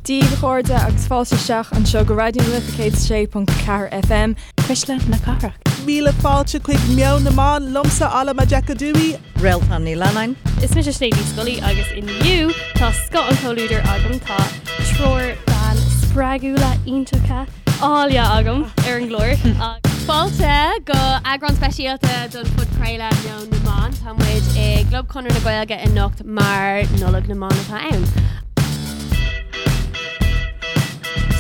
Dia daoibh a chairde agus fáilte isteach anseo go Raidió na Life 106.4 FM. Cuisle na Cathrach. Míle fáilte chuig Meon na mBan, liomsa Alma Majekodunmi. Réaltán Ní Leannáin. Is mise Sinéad Ní Scolaí agus inniu tá scoth an chomhluadair agam, tá triúr bean spreagúla iontacha áille agam ar an gclár. Fáilte go eagrán speisialta don phodchraoladh Meon na mBan. Tá muid i gClub Chonradh na Gaeilge anocht mar Nollaig na mBan atá ann.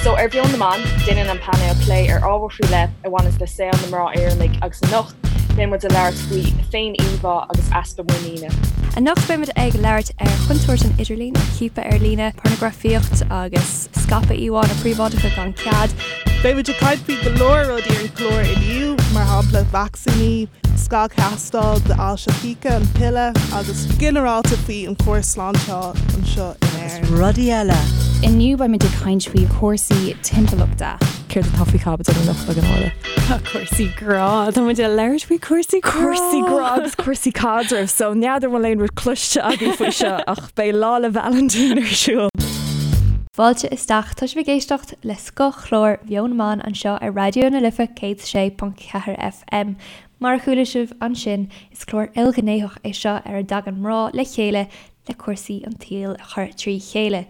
So ar Mheon na mBan, déanann an painéal plé ar ábhar faoi leith a bhaineanns le saol na mná Éireannaigh agus anocht beidh muid ag labhairt faoi féin-íomhá agus easpa muiníne. Anocht beidh muid ag labhairt ar chontúirt an idirlín, ar chiapadh ar líne, pornagrafaíocht agus scaipeadh íomhánna príobháideacha gan cead. Beidh muid ag caint faoi go leor rudaí ar an chlár inniu, mar shampla vacsaíní, scagthástáil d'ailse chíche, an piolla agus ginearálta faoi an córas sláinte anseo in Éirinn. Agus rudaí eile. Inniu beimid ag caint faoi chúrsaí timpeallachta. Céard atá faoi chaibidil anocht againn Orla? Tá cúrsaí grá. Tá muid ag labhairt faoi cúrsaí grá. Cúrsaí grá agus cúrsaí caidrimh. So n'fheadar an bhfuil aon rud cloiste agaibh faoi seo ach beidh Lá 'le Vailintín ar siúl. Fáilte isteach, tá sibh ag éisteacht le scothchlár Mheon na mBan anseo ar Raidió na Life 106.4 FM. Mar a chuala sibh ansin, is clár ilghnéitheach é seo ar a dtagann mná le chéile le cúrsaí an tsaoil a chur trí chéile.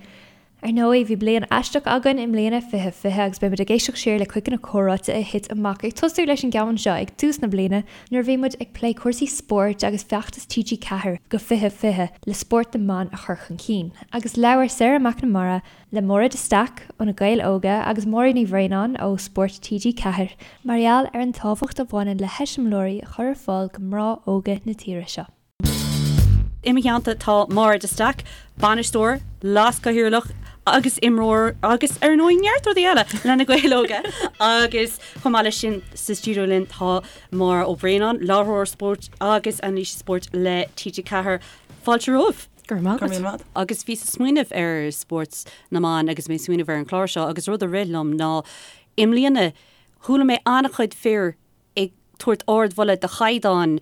Ar ndóigh, bhí bliain aisteach againn i mbliana, 2020, agus beidh muid ag éisteacht siar le cuid de na comhráite a thit amach, ag tosú leis an gceann seo ag tús na bliana nuair a bhí muid ag plé cúrsaí spóirt agus feachtas TG4 go 2020 le spórt na mban a chur chun cinn. Agus labhair Sarah McNamara le Máire de Staic ó Na Gaeil Óga agus Máirín Ní Bhraonáin ó Spórt TG4 mar gheall ar an tábhacht a bhaineann le heiseamláirí a chur ar fáil go mná óga na tíre seo. I mo theannta tá Máire de Staic, bainisteoir, leaschathaoirleach agus imreoir agus ar ndóigh neart rudaí eile le Na Gaeil Óga agus chomh maith leis sin sa stiúideo linn tá Máire Ó Braonáin, láithreoir spóirt agus anailísí spóirt le TG4. Fáilte romhaibh. Go raibh maith agat. Agus bhíos ag smaoineamh ar spórt na mban agus mé ag smaoineamh ar an chlár seo agus rud a rith liom ná i mbliana chuala mé an-chuid fir ag tabhairt ardmholadh do chaighdeán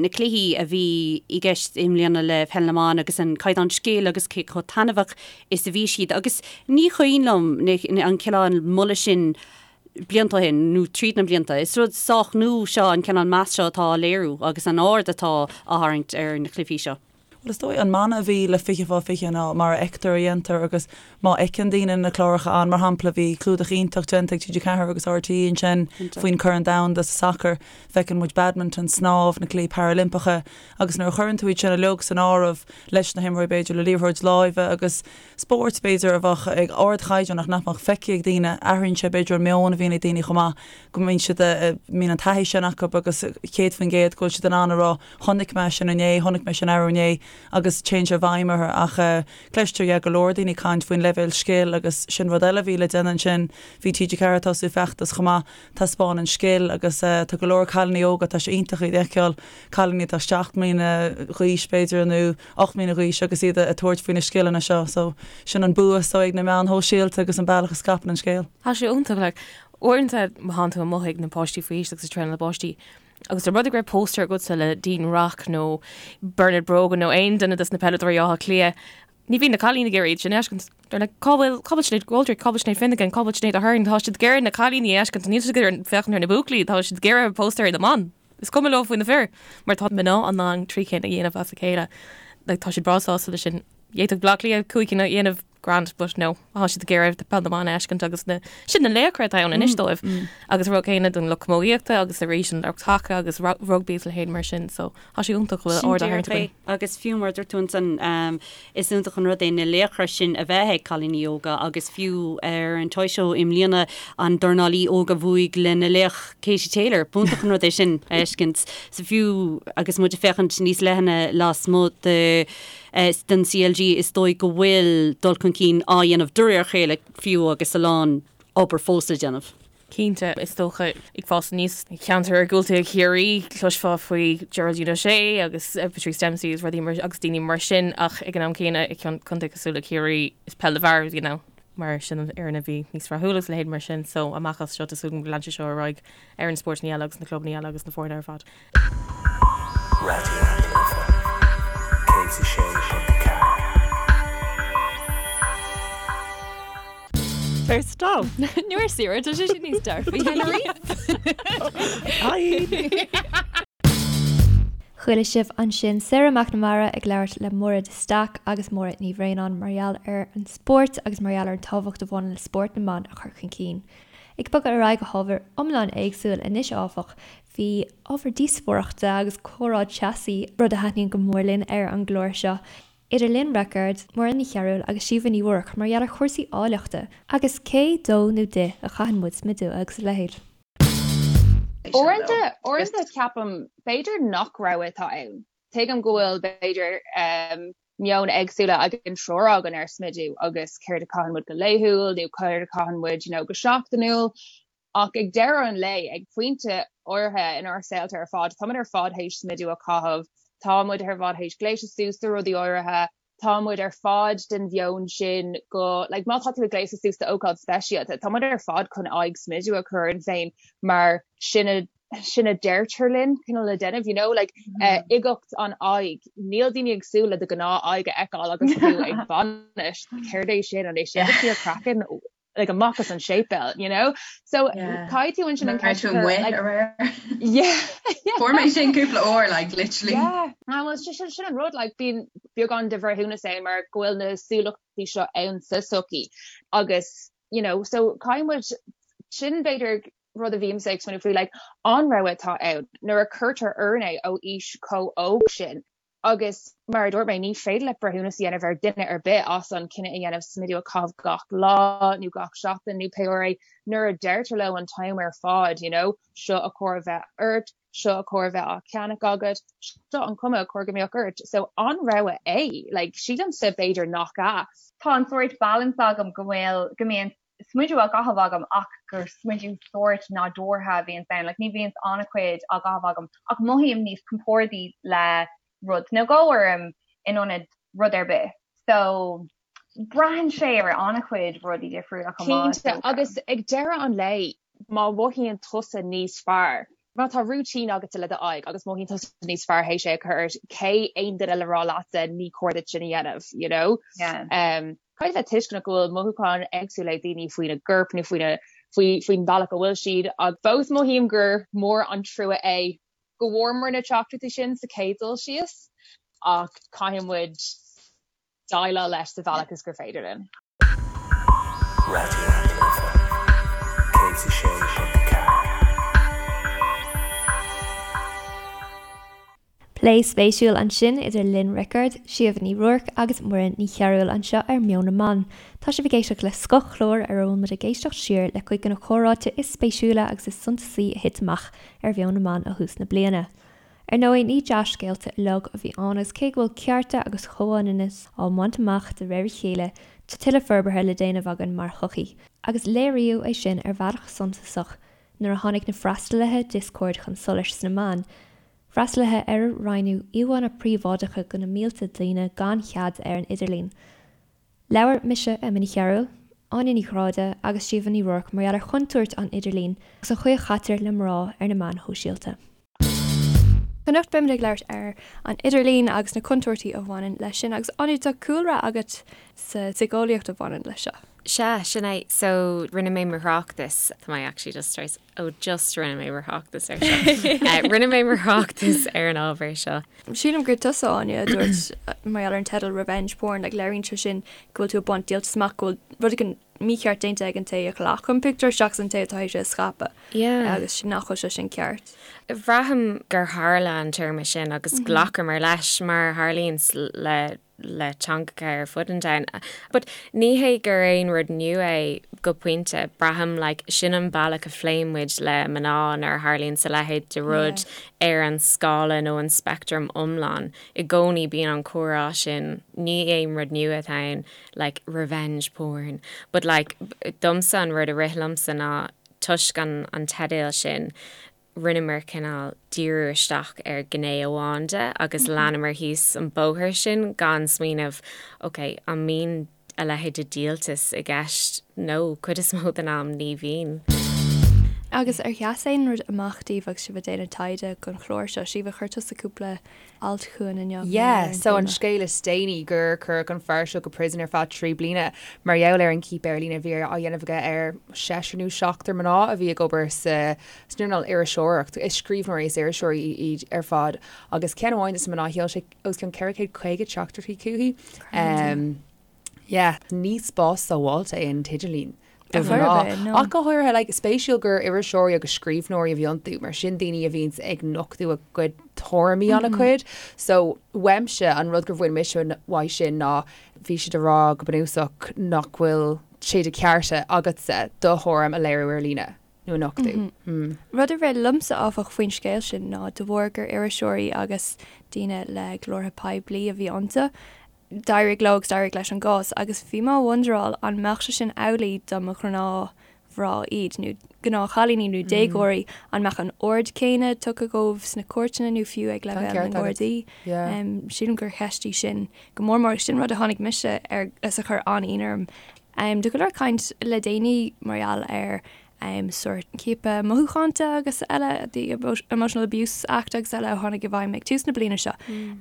na cluichí a bhí i gceist i mbliana le Peil na mBan agus an caighdeán scil agus cé chomh taitneamhach is a bhí siad agus ní cuimhin liom an cineál moladh sin blianta ó shin nó tríd na blianta. Is rud sách nua seo an cineál meas seo atá á léiriú agus an aird atá á tharraingt ar na cluichí seo. Bhuel, is dóigh, an mana a bhí le 20 fá 20 ná mar a fheictear a dhéantar agus má fheiceann daoine na cláracha ann, mar shampla, bhí clúdach iontach déanta ag TG4 agus RTÉ ansin faoin Corn Domhanda sa sacar, feiceann muid badminton, snámh, na Cluichí Parailimpeacha agus nuair a chuireann tú iad sin uilig san áireamh leis na himreoirí b'fhéidir le liathróid láimhe agus spóirt b'fhéidir a bheadh ag ardchaighdeán ach nach mbeadh feicthe ag daoine, athraíonn sé b'fhéidir an meon a bhíonn ag daoine chomh maith go mbíonn siad, mbíonn an taithí sin acu agus 100% go bhfuil siad in ann a rá Chonaic mé sin inné, chonaic mé sin arú inné agus téann sé i bhfeidhm orthu ach cloistear yeah go leor daoine ag caint faoin leibhéal scil agus sin rud eile a bhí le déanamh ansin. Bhí TG4 ag tosú feachtas chomh maith, taispeáin an scil agus tá go leor cailíní óga, tá sé iontach iad a fheiceáil, cailíní atá 7 mbliana d'aois b'fhéidir nó 8 mbliana d'aois agus iad ag tabhairt faoi na scileanna seo so sin an bua so ag na meáin shóisialta agus an bealach a scaipeann an scéal. Tá sé iontach like uaireanta má thánn tú amuigh ag na páistí faoi aois agus ag traenáil na bpáistí Agus dá mba rud é go raibh póstaer agatsa le Dean Rock nó Bernard Brogan nó aon duine dos na peileadóirí Átha Cliath, ní bhíonn na cailíní ag iarraidh iad sin a fheiscint. They're like, cá bhfuil, cá bhfuil Sinéad McGoldrick, cá bhfuil Sinéad Finnegan, cá bhfuil Sinéad Aherne, tá siad ag iarraidh na cailíní a fheiscint, níl siad ag iarraidh féachaint ar na buachaillí, tá siad ag iarraidh póstaeir na mban. Is cuma leo faoi na fir, mar tá mná in ann trí cinn a dhéanamh as a chéile. Like, tá siad breá sásta leis sin. D'fhéadfadh Bleá Cliath cúig cinn a dhéanamh grand but no tá siad ag iarraidh peil na mban a fheiscint agus na sin na laochra atá ann anois dóibh agus an rud céanna don lucht camógaíochta agus arís an lucht haca agus rugbaí is a leithéid mar sin so tá sé iontach go bhfuil aird á tharraingt againn. Agus fiú mar a dúirt tú ansan is iontach an rud é na laochra sin a bheith ag cailíní óga agus fiú ar an Toy Show i mbliana an dornálaí óg a bhuaigh lena laoch Katie Taylor b'iontach an rud é sin a fheiscint so fiú agus muid ag féachaint níos leithne lasmuigh de den CLG, is dóigh go bhfuil dul chun cinn á dhéanamh de réir a chéile fiú agus a lán obair fós le déanamh. Cinnte, is dócha, ag fás aníos i gceantar iargúlta Chiarraí, chloisfeá faoi Geraldine O'Shea agus Patrice Dempsey agus rudaí mar, agus daoine mar sin ach ag an am céanna i gcontae cosúil le Ciarraí, is peil na bhfear a bhí ann mar sin an fhoireann a bhí níos rathúla agus a leithéid mar sin so amach as seo tá súil agam go leanfaidh sé seo ar aghaidh ar na spórtanna eile agus na clubanna eile agus na foirne ar fad. Raidió na Life 106.4. Ar stop. Nó ar saoire, tá sé sin níos dearfaí. Chuala sibh ansin Sarah McNamara ag labhairt le Máire de Staic agus Máire Ní Bhraonáin mar gheall ar an spórt agus mar gheall ar an tábhacht a bhaineann le spórt na mban a chur chun cinn. Ag bogadh ar aghaidh go hábhar iomlán éagsúil anois áfach, bhí ábhar díospóireachta agus comhrá teasaí, rud a thaitníonn go mór linn ar an gclár seo, idir Lynn Rickard, Muireann Ní Chearúil agus Síomha Ní Ruairc mar gheall ar chúrsaí áilleachta agus cé dó nó di a chaitheann muid smideadh agus a leithéid. Uaireanta, uaireanta ceapaim, b'fhéidir nach rogha atá ann. Tuigim go bhfuil, b'fhéidir, meon éagsúla ag an triúr againn ar smideadh agus céard a chaitheann muid go laethúil nó céard a chaitheann muid, you know, go seachtainiúil. Ach ag deireadh an lae, ag pointe áirithe inár saolta ar fad, tá muid ar fad théis smideadh a chaitheamh, tá muid ar fad théis gléasadh suas do rudaí áirithe, tá muid ar fad den mheon sin go, like, má tá tú ag gléasadh suas d'ócáid speisialta, tá muid ar fad chun aghaidh smideadh a chur orainn féin mar sin a, sin a deirtear linn cineál le déanamh, you know, like, uigeacht an aghaidh, níl daoine ag súil le do ghnáth aghaidh a fheiceáil agus tú ag bainis, céard é sin, an é sin do fíor craiceann? like amach as an séipéal, you know? So caithfidh tú ansin an ceist a chur, like, yeah, yeah. Fuair mé sin cúpla uair, like, literally. Yeah, ah, well, sin sin an rud, like, bíonn beagán de bhreithiúnas ann mar go bhfuil na súlachtaí seo ann sa tsochaí agus, you know, so caithfidh muid, sin b'fhéidir rud a bhímse ag smaoineamh faoi, like, an rogha atá ann nuair a cuirtear orainn é ó aois chomh óg sin. Agus mar a dúirt mé, ní féidir leat breithiúnas a dhéanamh ar dhuine ar bith as an cinneadh a dhéanamh smideadh a chaitheamh gach lá nó gach seachtain nó pé uair é nuair a deirtear leo an t-am ar fad, you know, seo a chóir a bheith ort, seo a chóir a bheith á cheannach agat, seo an cuma a chóir go mbeadh ort. So an rogha é? Like, sílimse b'fhéidir nach ea. Tá an sórt balance agam go bhfuil, go mbíonn smideadh á gcaitheamh agam ach gur smideadh sórt nádúrtha a bhíonns ann, like ní bhíonns an-chuid á gcaitheamh agam ach mothaím níos compordaí le rud nó dhó orm in ionad rud ar bith. So braitheann sé ar an-chuid rudaí difriúla chomh maith. Cinnte, agus ag deireadh an lae má mhothaíonn tusa níos fearr, má tá routine agatsa le do aghaidh agus mothaíonn tusa níos fearr théis é a chur ort, cé aon duine le rá leatsa ní cóir duit sin a dhéanamh, you know? Yeah. Um, caithfidh bheith tuisceanach go bhfuil mothúcháin éagsúla ag daoine faoina gcorp nó faoina faoi faoin bhealach a bhfuil siad ach fós mothaím gur mór an trua é go bhfuaireamar na teachtaireachtaí sin sa chéad dul síos ach caithfidh muid déileáil leis sa bhealach is gur féidir linn. Raidió na Life 106.4. Plé spéisiúil ansin idir Lynn Rickard, Síomha Ní Ruairc agus Muireann Ní Chearúil anseo ar Meon na mBan. Tá sibh ag éisteacht le scothchlár ar a bhfuil muid ag éisteacht siar le cuid de na comhráite is spéisiúla agus is suntasaí a thit amach ar Mheon na mBan ó thús na bliana. Ar ndóigh, ní dea-scéalta uilig a bhí ann agus cé go bhfuil cearta agus comhionannas á mbaint amach de réir a chéile, tá tuilleadh forbartha le déanamh againn mar shochaí. Agus léiríodh é sin ar bhealach suntasach nuair a tháinig na freastalaithe Discord chun solais sna meáin, freastalaithe ar a roinneadh íomhánna príobháideacha de na mílte daoine gan chead ar an idirlíon. Labhair mise, Emma Ní Chearúil, Áine Ní Ghráda agus Síomha Ní Ruairc mar gheall ar chontúirt an idirlín agus an chaoi a chaitear le mná ar na meáin shóisialta. Anocht beimid ag labhairt ar an idirlíon agus na contúirtí a bhaineann leis sin agus Áine tá cúlra agat sa tsíceolaíocht a bhaineann leis seo. Sea, sin é. So, rinne mé mo thráchtas, tá mé actually just tar éis, oh just rinne mé mo thráchtas ar seo. Rinne mé mo thráchtas ar an ábhar seo. Sílim gur tusa, Áine, a dúirt mar gheall ar an teideal 'Revenge Porn', like léiríonn sé sin go bhfuil tú ag baint díoltas amach, go bhfuil rud éigin mícheart déanta ag an té a ghlac an pictiúr seachas an té atá théis é a scaipeadh. Yeah. Agus nach bhfuil sé sin ceart. Bhraithim gur tharla an téarma sin agus ghlacamar leis mar a tharlaíonn le le teangacha ar fud an domhain. But ní hé gur aon rud nua é go pointe, braithim like sin an bealach a phléann muid le mná nuair a tharlaíonn a leithéid de rud ar an scála nó an speictream iomlán. I gcónaí bíonn an comhrá sin, ní aon rud nua atá ann, like revenge porn. But like domsa an rud a rith liomsa ná toisc an an teideal sin, rinneamar cineál díriú isteach ar ghné amháin de agus leanamar thíos an bóthar sin gan smaoineamh, ok, an mbíonn a leithéid de dhíoltas i gceist? No, cuid is mó den am ní bhíonn. Agus ar sheas aon rud amach daoibh agus sibh ag déanamh taighde don chlár seo? Síomha, chuir tusa cúpla alt chugainn inniu mar Yeah, gheall ar an so an téama. scéal is déanaí gur cuireadh an fear seo go prison ar feadh 3 bliana mar gheall ar an ciapadh ar líne a bhí á dhéanamh aige ar seisear nó seachtar mná a bhí ag obair sa san earnáil iriseoireacht. Is scríbhneoirí is iriseoirí iad ar fad agus ceann amháin de na mná sheol sé os cionn 450 teachtaireachtaí chuici. Um, Yeah, ní spás sábháilte é an t-idirlíon do mhná. Ach go háirithe, like, spéisiúil gur iriseoirí agus scríbhneoirí a bhí iontu, mar sin daoine a bhíonns ag nochtadh a gcuid tuairimí an-chuid. So, uaimse, an rud gur bhain mise uaidh sin ná bhí siad ag rá go bunúsach nach bhfuil sé de chearta agatsa do thuairim a léiriú ar líne nó a nochtadh. Rud a rith liomsa, áfach, faoin scéal sin ná de bharr gur iriseoirí agus daoine le glórtha poiblí a bhí iontu, D'éirigh leo agus d'éirigh leis an gcás agus bhí mé ag wonderáil an mbeadh sé sin amhlaidh dá mba ghnáthmhná iad nó gnáthchailíní nó déagóirí, an mbeadh an aird céanna tugtha dóibh sna cúirteanna nó fiú ag leibhéal na nGardaí? Sílim gur cheist í sin go mór mór agus sin rud a tháinig mise air is a chuir an-ionadh orm. Tá go leor caint le déanaí mar gheall ar sórt ciapadh mothúchánta agus eile, the Emotional Abuse Act agus eile a tháinig i bhfeidhm ag tús na bliana seo.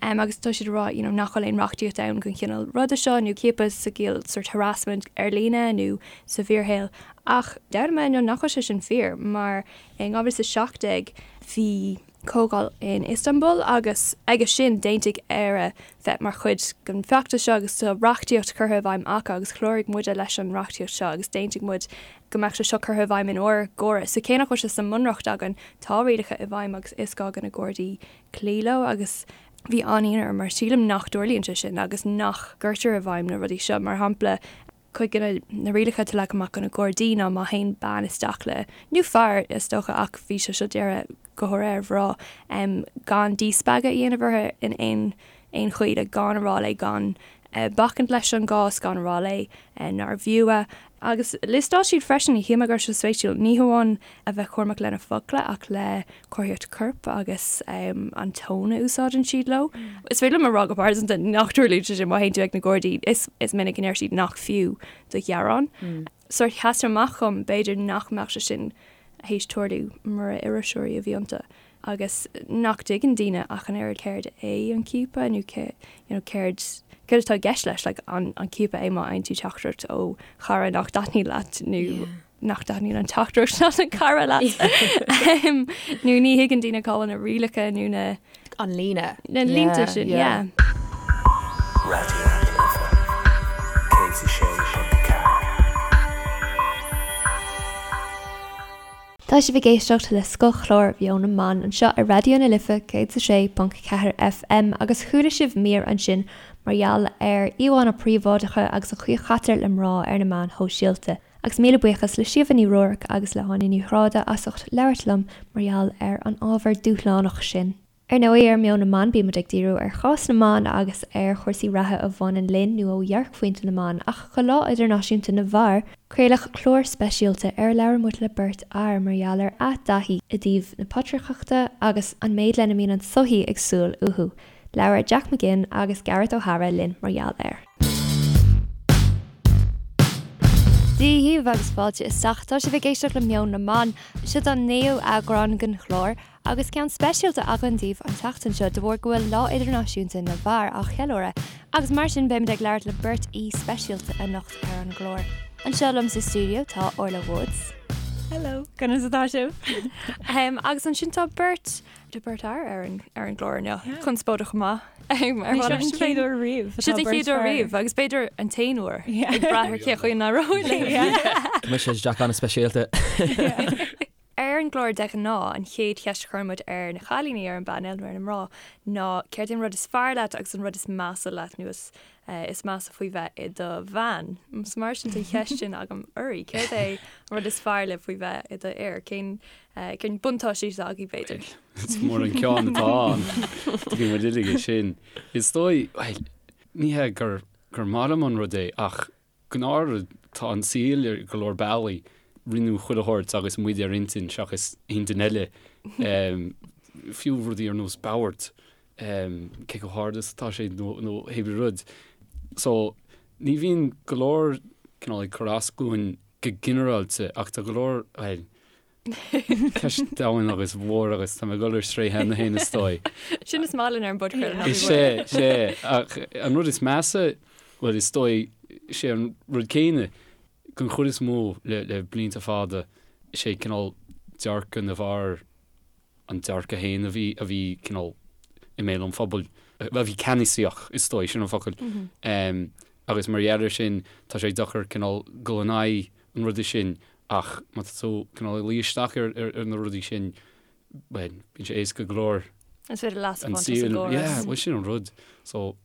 Agus tá siad ag rá you know nach bhfuil aon reachtaíocht ann don chineál ruda seo nó ciapadh sa gciall sórt harassment ar líne nó sa bhfíorshaol. Ach d'fhoghlaim mé inniu nach bhfuil sé sin fíor mar in 2017 bhí comhdháil in Istanbul agus aige sin d'aontaigh Éire bheith mar chuid den bhfeachtas seo agus tá reachtaíocht curtha i bhfeidhm acu agus chláraigh muide leis an reachtaíocht seo agus d'aontaigh muid go mbeadh sé seo curtha i bhfeidhm in ár gcóras. So cé nach bhfuil sé sa mBunreacht againn, tá rialacha i bhfeidhm agus is gá do na Gardaí cloí leo agus bhí an-ionadh orm mar sílim nach dtarlaíonn sé sin agus nach gcuirtear i bhfeidhm na rudaí seo. Mar shampla, cuid de na rialacha atá leagtha amach do na Gardaí ná má théann bean isteach le, nó fear is dócha ach bhí sé seo dírithe go háirithe ar mhná, gan díspeagadh a dhéanamh uirthi in aon aon chaoi, like gan a rá léi gan bacaint leis an gcás, gan a rá léi nár bhfiú é. Agus liostáil siad freisin, shíl mé go raibh sé spéisiúil, ní hamháin a bheith cúramach lena focla ach le comharthaíocht coirp agus an tón a úsáideann siad leo. Is féidir liom a rá go pearsanta nach dtarlaíonn sé sin má théann tú ag na Gardaí, is is minic a ndeir siad nach fiú do ghearán. Sórt sheas sé amach dhom, b'fhéidir nach mbeadh sé sin théis tarlú mura iriseoirí a bhí iontu. agus nach dtuigeann daoine ach an oiread céard é an ciapadh nó cé you know céard céard atá i gceist leis like an an ciapadh é má fhaigheann tú teachtaireacht ó chara nach dtaitníonn leat nó yeah. nach dtaitníonn an teachtaireacht leat an cara leat um, nó ní thuigeann daoine cá bhfuil na rialacha nó na an líne na línte sin yeah. Raidió na Life 106.4. Tá sibh ag éisteacht le scothchlár Mheon na mBan anseo ar Raidió na Life 106.4 FM agus chuala sibh mír ansin mar gheall ar íomhánna príobháideacha agus an chaoi a chaitear le mná ar na meáin shóisialta. Agus míle buíochas le Síomha Ní Ruairc agus le hÁine Ní Ghráda as ucht labhairt liom mar gheall ar an ábhar dúshlánach sin. Ar ndóigh, ar Meon na mBan bímid ag díriú ar chás na mban agus ar chúrsaí reatha a bhaineann linn nó ó dhearcphointe na mban, ach do Lá Idirnáisiúnta na bhFear, craoladh clár speisialta ar a labhair muid le beirt fhear mar gheall ar a dtaithí i dtaobh na patrarcachta agus an méid lena mbíonn an tsochaí ag súil uathu. Labhair Jack McGinn agus Gareth O'Hara linn mar gheall air. Dia dhaoibh agus fáilte isteach. Tá sibh ag éisteacht le Meon na mBan. Seo an naoú eagrán den chlár. Agus ceann speisialta againn daoibh an tseachtain seo de bharr go bhfuil Lá Idirnáisiúnta na bhFear á cheiliúradh agus mar sin beimid ag labhairt le beirt aoi speisialta anocht ar an gclár. Anseo liom sa stiúideo tá Orla Woods. Hello, conas atá sibh? Agus ansin tá beirt tá beirt fhear ar an ar an gclár inniu. Conspóideach go maith. Ar Ní seo an chéad uair riamh. Seo an chéad uair riamh agus b'fhéidir an t-aon uair ag brath ar cé chaoi a n-éireoidh linn. Mise Jack an-speisialta. Ar an gclár de ghnáth, an chéad cheist a chuireann muid ar na cailíní ar an bpainéal, nó ar na mná, ná céard é an rud is fearr leat agus an rud is measa leat nó is is measa faoi bheith i do bhean. So mar sin tá an cheist sin agam oraibh. Céard é an rud is fearr libh faoi bheith i do fhear? Cén cén buntáistí atá agaibh b'fhéidir? Is mór an ceann atá ann. Tuigeann muid uilig é sin. Is dóigh, bhuel, ní hé gur gur maith liom an rud é ach Gnáthrud, tá an saol ar go leor bealaí, rinneadh chuile shórt agus muid ar intinn seachas intinn eile, fiú rudaí ar nós bord, cé chomh hard is atá sé nó nó hébrí rud. So, ní bhíonn go leor cineál ag cur as dúinn go ginearálta ach tá go leor, bhuel. Ceist domhain agus mhór agus tá mé ag dul ar strae cheana féin is dóigh. Sin is maith linn ar an bpodchraoladh ná bí Is ea, is ea. Ach an rud is measa, bhuel is dóigh, sé an rud céanna, den chuid is mó le le blianta fada, is é cineál dearcadh na bhfear an dearcadh féin a bhí a bhí cineál i mbéal an phobail, a bhí ceannasaíoch is dóigh, sin an focal. Agus mar gheall air sin tá sé deacair cineál dul in aghaidh an ruda sin Ach má tá tú cineál ag luí isteach ar na rudaí sin, bhuel, bíonn sé éasca go leor. Is féidir leas a bhaint as an gcóras. Yeah, bhuel sin an rud. So.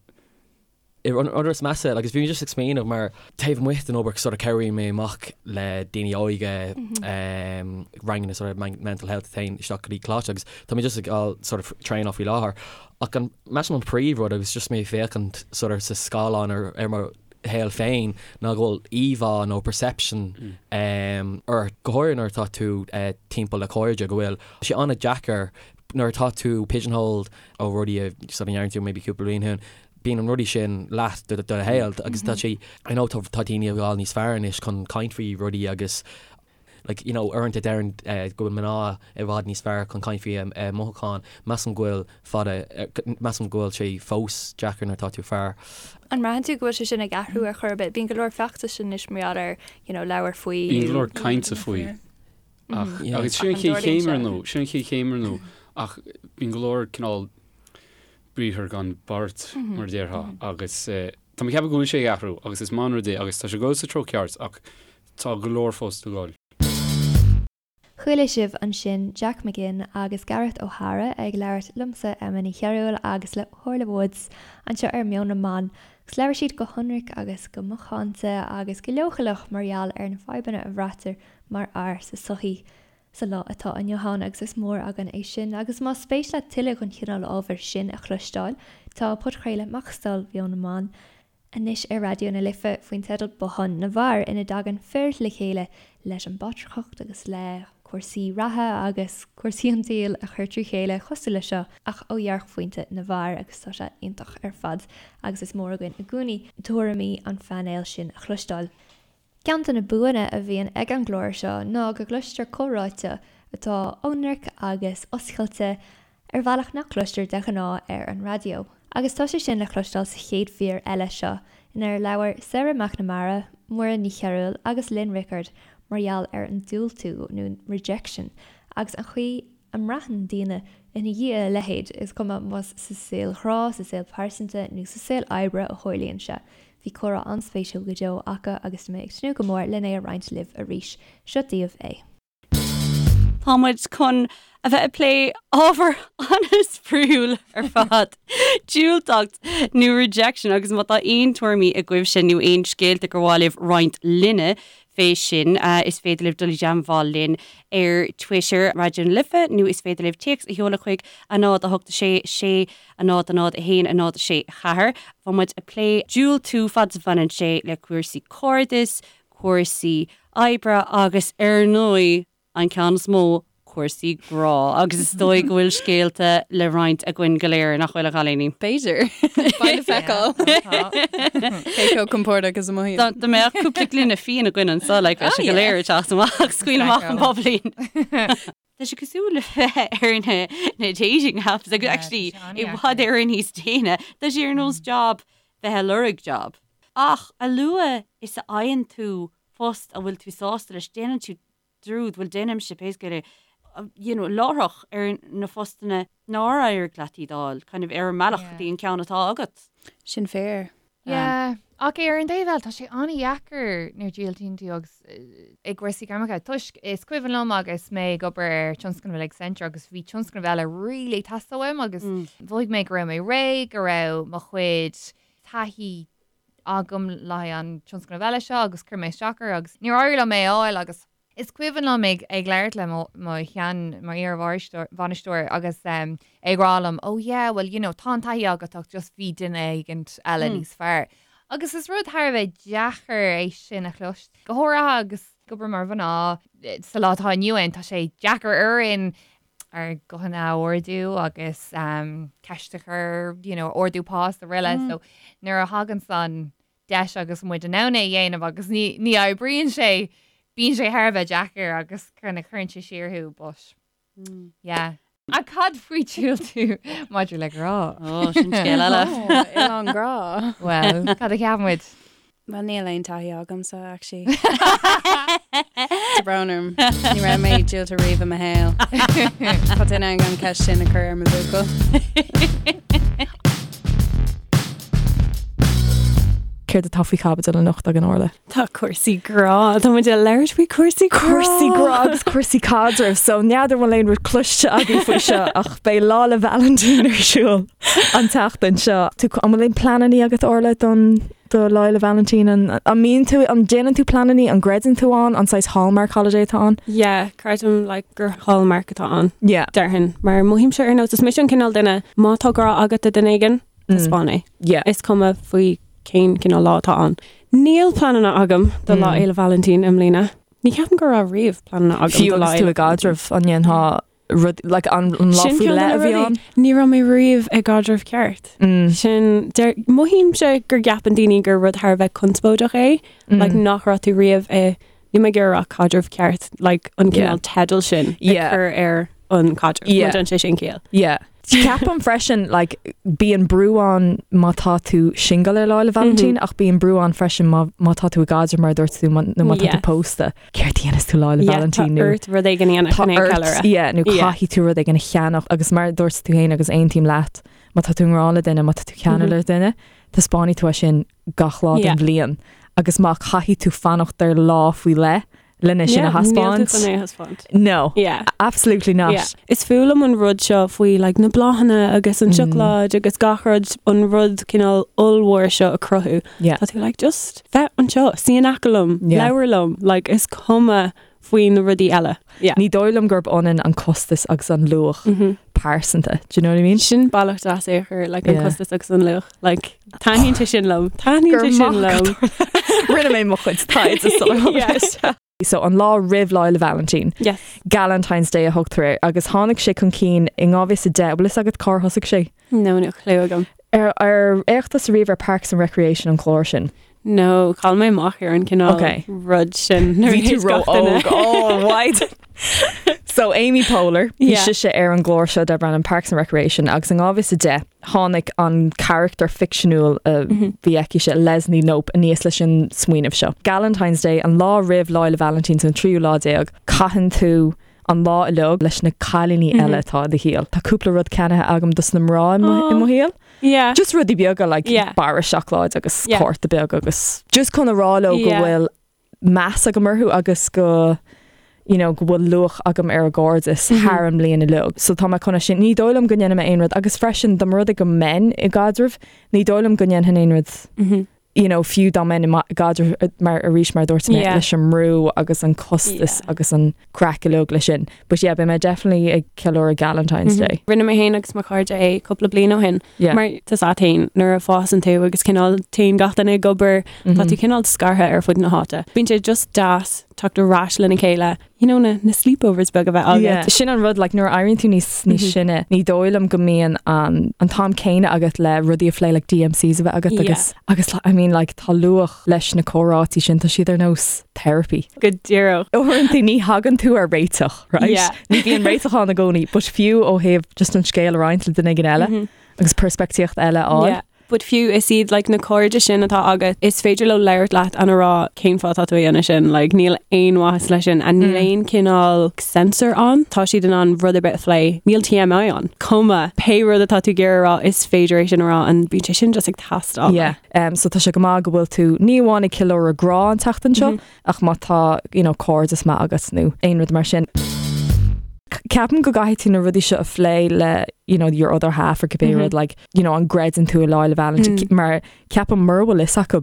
An rud is measa, agus bhí mé just ag smaoineamh mar taobh amuigh den obair sort of cabhraíonn mé amach le daoine óige, ranganna sort of mental health a théann isteach go dtí coláiste agus tá mé just ag fáil sort of traenáil faoi láthair. Ach an, measaim an príomhrud agus just mé ag féachaint sort of sa scáileán ar ar mo shaol féin ná go bhfuil íomhá nó perception ort, go háirithe nuair atá tú timpeall le cairde, go bhfuil sé an-deacair nuair atá tú pigeonholed ó rudaí a sort of ndearna tú maybe cúpla bliain ó shin, bíonn an rudaí sin leat do do shaol agus tá sé, I know tá daoine ag fáil níos fearr anois chun caint faoi rudaí agus like, you know, uaireanta deireann go bhfuil mná i bhfad níos fearr chun caint faoi a mothucháin, measaim go bhfuil fada, measaim go bhfuil sé fós deacair nuair atá tú fear. An mbraitheann tú go bhfuil sé sin ag athrú ar chor ar bith? Bíonn go leor feachtais anois mar gheall ar, you know, labhair faoi. Bíonn go leor cainte faoi. Ach, agus sin an chéad chéim ar ndóigh, sin an chéad chéim ar ndóigh, ach bíonn go leor cineál briathar gan beart, mar a déarfá, agus tá mé ag ceapadh go bhfuil sé ag athrú agus is maith an rud é agus tá sé ag dul sa treo ceart ach Tá go leor fós le dhul. Chuala sibh ansin Jack McGinn agus Gareth O'Hara ag labhairt liomsa, Emma Ní Chearúil, agus le hOrla Woods anseo ar Meon na mBan agus labhair siad go hionraic agus go macánta agus go leochaileach mar gheall ar na fadhbanna a bhraitear mar fhear sa tsochaí sa lá atá inniu ann agus is mór againn é sin. Agus más spéis leat tuilleadh den chineál ábhair sin a chloisteáil, tá podchraoladh Macastal Mheon na mBan anois ar Raidió na Life faoin teideal Bothán na bhFear ina dtagann fir le chéile leis an bpatrarcacht agus le cúrsaí reatha agus cúrsaí an tsaoil a chur trí chéile cosúil le seo ach ó dhearcphointe na bhfear agus tá sé iontach ar fad agus is mór againn i gcónaí tuairimí an phainéil sin a chloisteáil. Ceann de na buanna a bhíonn ag an gclár seo ná go gcloistear comhráite atá ionraic agus oscailte ar bhealach nach gcloistear de ghnáth ar an raidió. Agus tá sé sin le cloisteáil sa chéad mhír eile seo, inar labhair Sarah McNamara, Muireann Ní Chearúil agus Lynn Rickard mar gheall ar an diúltú, nó rejection, agus an chaoi a mbraitheann daoine ina dhiaidh a leithéid, is cuma más sa saol grá, sa saol pearsanta nó sa saol oibre a tharlaíonn sé. Bhí comhrá an-spéisiúil go deo acu agus tá mé ag tnúth go mór len é a roinnt libh arís. Seo daoibh é. Tá muid chun a bheith ag plé ábhar an-spraíúil ar fad, diúltacht nó rejection agus má tá aon tuairimí agaibhse nó aon scéalta gur mhaith libh roinnt linne fé sin, is féidir libh dul i dteagmháil linn ar Twitter, Raidió na Life, nó is féidir libh téacs a sheoladh chuig 0 8 6 6 0 0 1 0 6 4. Tá muid ag plé diúltú fad is a bhaineann sé le cúrsaí cairdis, cúrsaí oibre agus ar ndóigh an ceann is mó, cúrsaí grá. Agus is dóigh go bhfuil scéalta le roinnt againn go léir, nach bhfuil a chailíní? B'fhéidir. Beidh le feiceáil. Cé chomh compordach is a mothaím. Dá mbeadh cúpla gloine fíon againn anseo, like, bheadh sé go léir ag teacht amach, scaoil amach an bubbly. Tá sé cosúil le bheith ar na na dating apps agus actually i bhfad Éireann níos déine. Tá sé ar nós job bheith ag lorg job. Ach a luaithe is a fhaigheann tú post a bhfuil tú sásta leis, déanann tú dearúd, bhuel déanaimse pé scéal é, you know, láithreach ar na postanna nár éirigh leat iad a fháil, kind of ar an mbealach go dtí an ceann atá agat. Sin fíor. Yeah, ach ar an dtaobh eile, tá sé an-dheacair nuair a dhiúltaíonn tú agus i gcúrsaí gairmeacha, toisc is cuimhin liom agus mé ag obair ar tionscnamh le Accenture agus bhí tionscnamh eile really ag teastáil uaim agus mhothaigh mé go raibh mé réidh, go raibh mo chuid taithí agam le haghaidh an tionscnamh eile seo agus chuir mé isteach air agus níor éirigh liom é a fháil agus Is cuimhin liom ag ag labhairt le mo mo shean mo iar-bhainisteoir agus é ag rá liom oh yeah well you know tá an taithí agat ach just bhí duine éigint eile níos fearr. Agus is rud thar a bheith deacair é sin a chloisteáil, go háirithe agus ag obair mar mhná sa lá atá inniu ann tá sé deacair orainn ár nguthanna a ardú agus ceist a chur you know ardú pá is araile so nuair a thagann san deis agus muid in ann é a dhéanamh agus ní ní oibríonn sé. Bíonn sé thar a bheith deacair agus kind of cuireann sé siar thú but yeah. Ach cad faoi diúltú maidir le grá? Ó, sin scéal eile. Ó, oileán grá. Well, cad a cheap muid? Well, níl aon taithí agamsa, actually. Tá brón orm. Ní raibh mé diúltú riamh i mo shaol. Tá duine ag an ceist sin a chur ar mo bhuachaill. Céard atá faoi chaibidil anocht againn, Orla? Tá cúrsaí grá, tá muid ag labhairt faoi cúrsaí grá. Cúrsaí grá agus cúrsaí caidrimh, so n'fheadar an bhfuil aon rud cloiste agaibh faoi seo ach beidh Lá 'le Vailintín ar siúl an tseachtain seo. Tú, an bhfuil aon pleanannaí agat Orla don do Lá 'le Vailintín? An, an mbíonn tú, an déanann tú pleanannaí, an gcreideann tú ann, an saghas hallmark holiday atá ann? Yeah, creidim like gur hallmark atá ann. Yeah. Déarfainn, mar mothaímse ar nós, is mise an cineál duine, má tá grá agat do duine éigin, taispeáin é. Yeah. Is cuma faoi cén cineál lá atá ann. Níl pleananna agam do Lá Fhéile Vailintín i mbliana. Ní cheapaim go raibh riamh pleananna agam Fiú do Lá agus tú Fhéile i gcaidreamh, an ndéanfá rud, like an lá Sin faoi ceann de leith na a bhí rudaí. ann? Ní raibh mé riamh i gcaidreamh ceart. Sin, deir, mothaímse gur gceapann daoine gur rud thar a bheith conspóideach é, like nach raibh tú riamh i, níl mé ag iarraidh a rá caidreamh ceart, like an cineál teideal sin ag cur ar an caidreamh. Yeah. Má déanann sé sin ciall. Yeah. Ceapaim freisin, like, bíonn brú ann má tá tú single ar Lá 'le Vailintín, ach bíonn brú ann freisin má, má tá tú i gcaidreamh mar a dúirt tú, má, nó má tá tú Yes. pósta. Céard a dhéanfas tú Lá 'le Yeah, Vailintín tá nó ort rud éigin a dhéanamh Tá chun é a ort, cheiliúradh. yeah, nó Yeah. caithfidh tú rud éigin a cheannach agus mar a dúirt tú féin agus aontaím leat, má tá tú i ngrá le duine, má tá tú ceanúil le duine, taispeánfaidh tú é sin gach lá den Yeah. bhliain. Agus má caithfidh tú fanacht ar lá faoi leith lena sin a Yeah, níl tú thaispeáint. chun é a thaispeáint. No. Yeah. Absolutely not. Yeah. Is fuath liom an rud seo faoi like, na bláthanna agus an Mm. seacláid agus gach rud an rud cineál ollmhór seo a cruthú. Yeah. Tá tú like just bheith anseo, suí in aice liom, Yeah. labhair liom, like is cuma faoi na rudaí eile. Yeah. Ní dóigh liom gurb ionann an costas agus an luach pearsanta. Do you know what I mean? Sin bealach deas é a chur like an Yeah. costas agus an luach. Like taitníonn sé sin liom. Taitníonn Gur sé sin maith liom. Rinne mé mo chuid taighde sula Yeah. So an lá roimh Lá 'le Vailintín. Yes. Galentine's Day a thugtar air agus tháinig sé chun cinn in 2010 bhfuil fhios agat cár thosaigh sé? No, níl clue agam. Ar ar fhéach tusa riamh ar Parks and Recreation an clár sin? No, chaill mé amach ar an cineál Okay. rud sin. nuair a Bhí tú thit gach duine. ró-óg. Oh, why? So Amy Poehler, bhí Yeah. sise ar an gclár seo darb ainm Parks and Recreation agus in 2010 tháinig an charachtar ficseanúil a bhí aici se Leslie Knope aníos leis an smaoineamh seo. Galentine's Day an lá roimh Lá 'le Vailintín an tríú lá déag, caitheann tú an lá uilig leis na cailíní eile atá i do shaol. Tá cúpla rud ceannaithe agam dos na mná i mo i mo shaol. Yeah. Just rudaí beaga like Yeah. barra seacláid agus Yeah. cárta beag agus just chun a rá leo go Yeah. bhfuil meas agam orthu agus go you know, go bhfuil luach agam ar a gcairdeas Mhm. thar an mbliain uilig. So tá mé chun é sin ní dóigh liom go ndéanfaidh mé aon rud agus freisin dá mba rud é go mbeinn i gcaidreamh, ní dóigh liom go ndéanfainn aon rud Mhm. you know, fiú dá mbeinn i ma- gcaidreamh eh, mar arís mar dúirt mé Yeah. leis an mbrú agus an costas agus an craic uilig leis sin. But yeah, beidh mé definitely ag ceiliúradh Galentine's Mhm. Day. Rinne mé féin agus mo chairde é cúpla bliain ó shin. Yeah. Mar tá a fhios agat féin nuair a fásann tú agus cineál téann gach duine ag obair, tá Mhm. tú cineál scartha ar fud na háite. Bíonn sé just deas teacht ar ais lena chéile, you know, na, na sleepovers beag a bheith agat. Yeah. Sin an rud like, nuair a éiríonn tú níos níos Mhm. sine, ní dóigh liom go mbíonn an, an t-am céanna agat le rudaí a phlé like DMCs a bheith agat Yeah. agus agus I mean like tá luach leis na comhráití sin tá siad ar nós therapy. Go díreach. Uaireanta ní thagann tú ar réiteach, right? Yeah. Ní bhíonn réiteach ann i gcónaí, but fiú ó thaobh just an scéal a roinnt le duine éigin eile Mhm. agus peirspictíocht eile a fháil. Yeah. But fiú is iad like, na cairde sin atá agat, is féidir leo labhairt leat and a rá cén fáth atá tú a dhéanamh sin, like, níl aon mhaitheas leis sin and níl Mm. aon cineál censor ann, tá siad in ann rud ar bith a phlé, níl TMI ann. Cuma pé rud atá tú ag iarraidh a rá, is féidir é sin a rá and bíonn sé sin just ag teastáil. Yeah. Um, so tá sé go maith go bhfuil tú ní amháin ag ceiliúradh grá an tseachtain seo, Mhm. ach má tá you know, cairdeas maith agat nó aon rud mar sin. Ceapaim go gcaithfidh tú na rudaí seo a phlé le you know, your other half or cibé Mhm. rud like, you know, an gcreideann tú i Lá 'le Vailintín Mm. mar ceapaim mura bhfuil fhios acu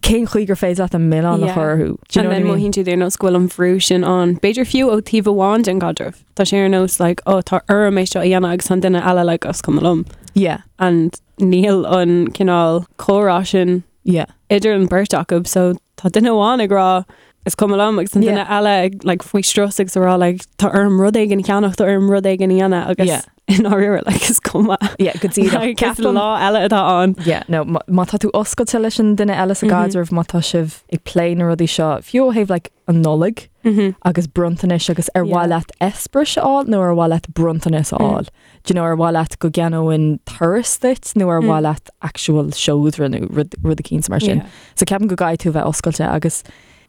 cén chaoi gur féidir leat an milleán a Yeah. chur orthu. Do you And know what I then mean? mothaíonn siad ar nós go bhfuil an bhrú sin ann. B'fhéidir fiú ó taobh amháin den gcaidreamh. Tá sé ar nós like, oh, tá orm é seo a dhéanamh agus an duine eile like, is cuma liom. Yeah. And níl an cineál comhrá sin Yeah. idir an beirt acu, so tá duine amháin ag rá Is cuma liom agus an duine eile ag like faoi strus agus ag rá like tá orm rud éigin a cheannach, tá orm rud éigin a dhéanamh agus Yeah. i ndáiríre like is cuma. Yeah, go díreach. Like, is Ceapaim- lá eile atá ann. Yeah, no, má má tá tú oscailte leis an duine eile sa Mhm. gcaidreamh, má tá sibh ag plé na rudaí seo, fiú ó thaobh like an Nollaig Mhm. agus bronntanais agus ar mhaith Yeah. leat eispéireas a fháil nó ar mhaith leat bronntanas a Mm. fháil. Do you know, ar mhaith leat go gceannóinn turas duit nó ar Mm. mhaith leat actual seodra nó rud rud eicínt mar sin. Yeah. So ceapaim go gcaithfidh tú a bheith oscailte agus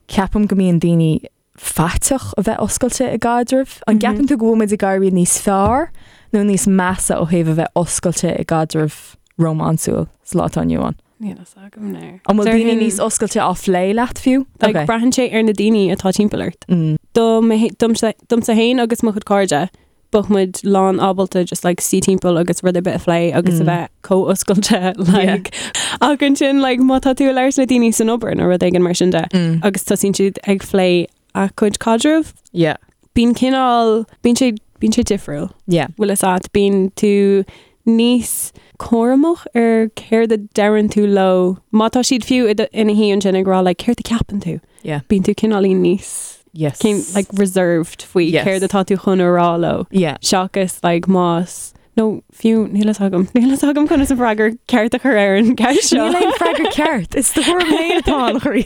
ceapaim go mbíonn daoine faiteach a bheith oscailte i gcaidreamh. An Mhm. gceapann tú go bhfuil muid ag éirí níos fearr nó níos measa ó thaobh a bheith oscailte i gcaidreamh rómánsúil sa lá atá inniu ann? Níl a fhios agam now. An bhfuil daoine Déarfainn- níos oscailte á phlé leat fiú? Like, Okay. braitheann sé ar na daoine atá timpeall ort. Mm. Dom domsa domsa féin agus mo chuid cairde, bheadh muid lán ábalta just like suí timpeall agus rud ar bith a phlé agus a Mm. bheith chomh oscailte like ach ansin like má tá tú ag labhairt le daoine san obair nó rud éigin mar sin de Mm. agus tosaíonn siad ag plé a gcuid caidreamh. Yeah. Bíonn cineál bíonn sé bíonn sé difriúil. Yeah. Bhfuil a fhios agat bíonn tú níos cúramach ar céard a deireann tú leo. Má tá siad fiú i do- ina shuí ansin ag rá like céard a ceapann tú. Yeah. Bíonn tú cineáilín níos Yes. cén like reserved faoi Yes. céard atá tú chun a rá leo. Yeah. Seachas like más nó fiú níl a fhios agam níl a fhios agam conas an freagra ceart a chur ar an gceist seo. Níl aon freagra ceart. Is do thuairim féin atá ann, a chroí.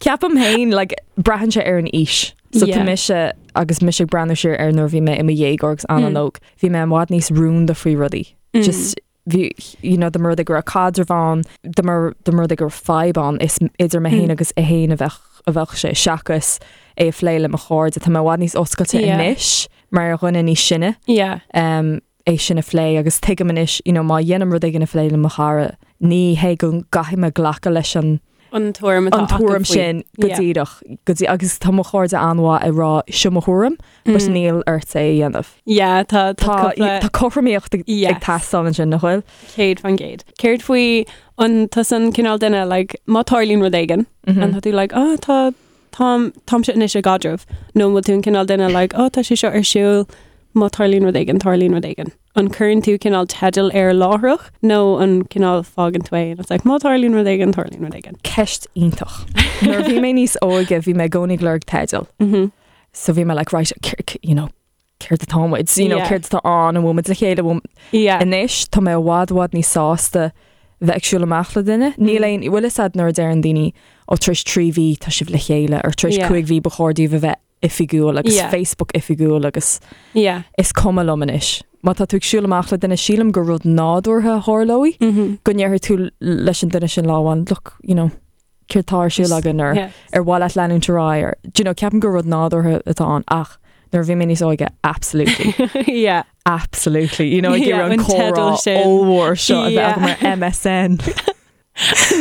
Ceapaim féin like, braitheann sé ar an aois. So Yeah. tá mise agus mise ag breathnú siar ar nuair a bhí mé i mo dhéagóir agus Mm. an-óg, bhí mé i bhfad níos rúnda faoi rudaí. Mm. Just bhí you know, dá mba rud é go raibh caidreamh ann, dá mba dá mba rud é go raibh fadhb ann, is idir mé féin Mm. agus é féin a bheadh a bheadh sé seachas é a phlé le mo chairde. Tá mé i bhfad níos oscailte Yeah. anois mar dhuine níos sine. Yeah. Um, é sin a phlé agus tuigim anois, you know, má dhéanaim rud éigin a phlé le mo chara, ní hé go gcaithfidh mé glacadh leis an An tuairim atá an acu tuairim faoi. sin go Yeah. díreach go dtí agus tá mo chairde an-mhaith ag rá seo mo thuairim, but Mm. níl ort é a dhéanamh. Yeah, tá Tá cúpla- tá cothromaíocht ag Yes. ag teastáil ansin nach bhfuil? 100%. Céard faoi an tusa an cineál duine like, má tarlaíonn rud éigin Mhm. an tá tú like, oh, tá táim táimse anois i gcaidreamh nó an bhfuil tú an cineál duine like, oh, tá sé seo ar siúl má tarlaíonn rud éigin tarlaíonn rud éigin. An cuireann tú cineál teideal air láithreach nó an cineál fágann tú é and it's like, má tarlaíonn rud éigin tarlaíonn rud éigin. Ceist iontach. Nuair a bhí mé níos óige bhí mé i gcónaí ag lorg teideal. Mhm. So bhí mé like, right, you know, céard atá muid, you know, Yeah. céard atá ann, an bhfuil muid le chéile, an bhfuil- Yeah. Anois tá mé i bhfad i bhfad níos sásta bheith ag siúl amach le duine. Níl Mm. aon bhfuil a fhios agat nuair a deireann daoine ó tar éis 3 mhí tá sibh le chéile or tar éis Yeah. 5 mhí ba chóir daoibh a bheith oifigiúil agus Yeah. Facebook oifigiúil agus Yeah. is cuma liom anois. Má tá tú ag siúl amach le duine sílim gur rud nádúrtha a tharlóidh Mhm. go ndéarfaidh tú leis an duine sin lá amháin, look, you know, céard atá ar siúl againn or Yeah. ar mhaith leat leanúint ar aghaidh or do you know, ceapaim gur rud nádúrtha atá ann ach nuair a bhí mé níos óige absolutely. yeah. Absolutely. You know, ag Yeah, iarraidh an an teideal comhrá sin. ollmhór seo a bheith Yeah. agam ar MSN.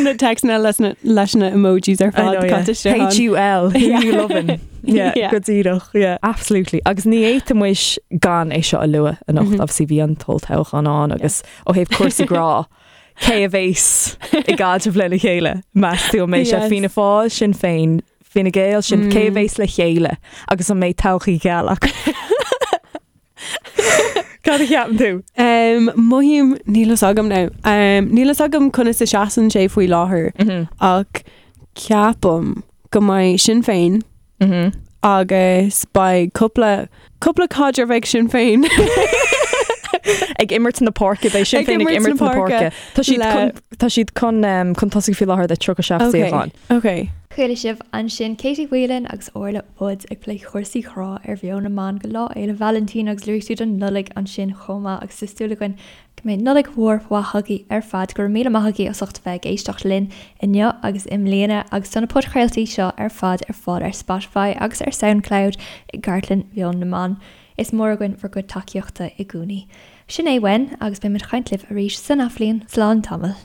Na téacsanna leis na leis na emojis ar I fad know, yeah. caite isteach ann. H-U-L, who Yeah. you loving? Yeah, Yeah. go díreach, yeah. Absolutely. Agus ní fhéadfaidh muid gan é seo a lua anocht, Mhm. obviously bhí an t-olltoghchán ann agus ó thaobh cúrsaí grá, cé a bheas i gcaidreamh lena chéile? Meas tú an mbeidh sé Yes. Fianna Fáil, Sinn Féin, Fine Gael, sin cé a Mm. bheas le chéile agus an mbeidh todhchaí gheal acu? Cad a cheapann tú? Um, mothaím níl a fhios agam now. Um, níl a fhios agam conas a seasann sé faoi láthair Mhm. ach ceapaim go mbeidh Sinn Féin Mhm. agus beidh cúpla cúpla caidreamh ag Sinn Féin. Ag imirt na páirce beidh Sinn Ag Féin ag imirt imirt na na páirce. páirce Tá siad le- chun- tá siad chun um, chun tosaigh faoi láthair le 37 Okay, suíochán. okay. Chuala sibh ansin Katie Whelan agus Orla Woods ag plé chúrsaí grá ar Mheon na mBan go Lá Fhéile Vailintín agus luaigh siad an Nollaig ansin chomh maith agus tá súil againn go mbeidh Nollaig mhór mhaith agaibh ar fad. Go raibh míle maith agaibh as ucht a bheith ag éisteacht linn inniu agus i mbliana agus tá na podchraoltaí seo ar fad ar fáil ar Spotify agus ar Soundcloud i gcartlann Mheon na mBan. Is mór againn bhur gcuid tacaíochta i gcónaí. Sin é uainn agus beidh muid ag caint libh arís san athbhliain. Slán tamall.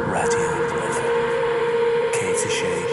Raidió na Life 106.4.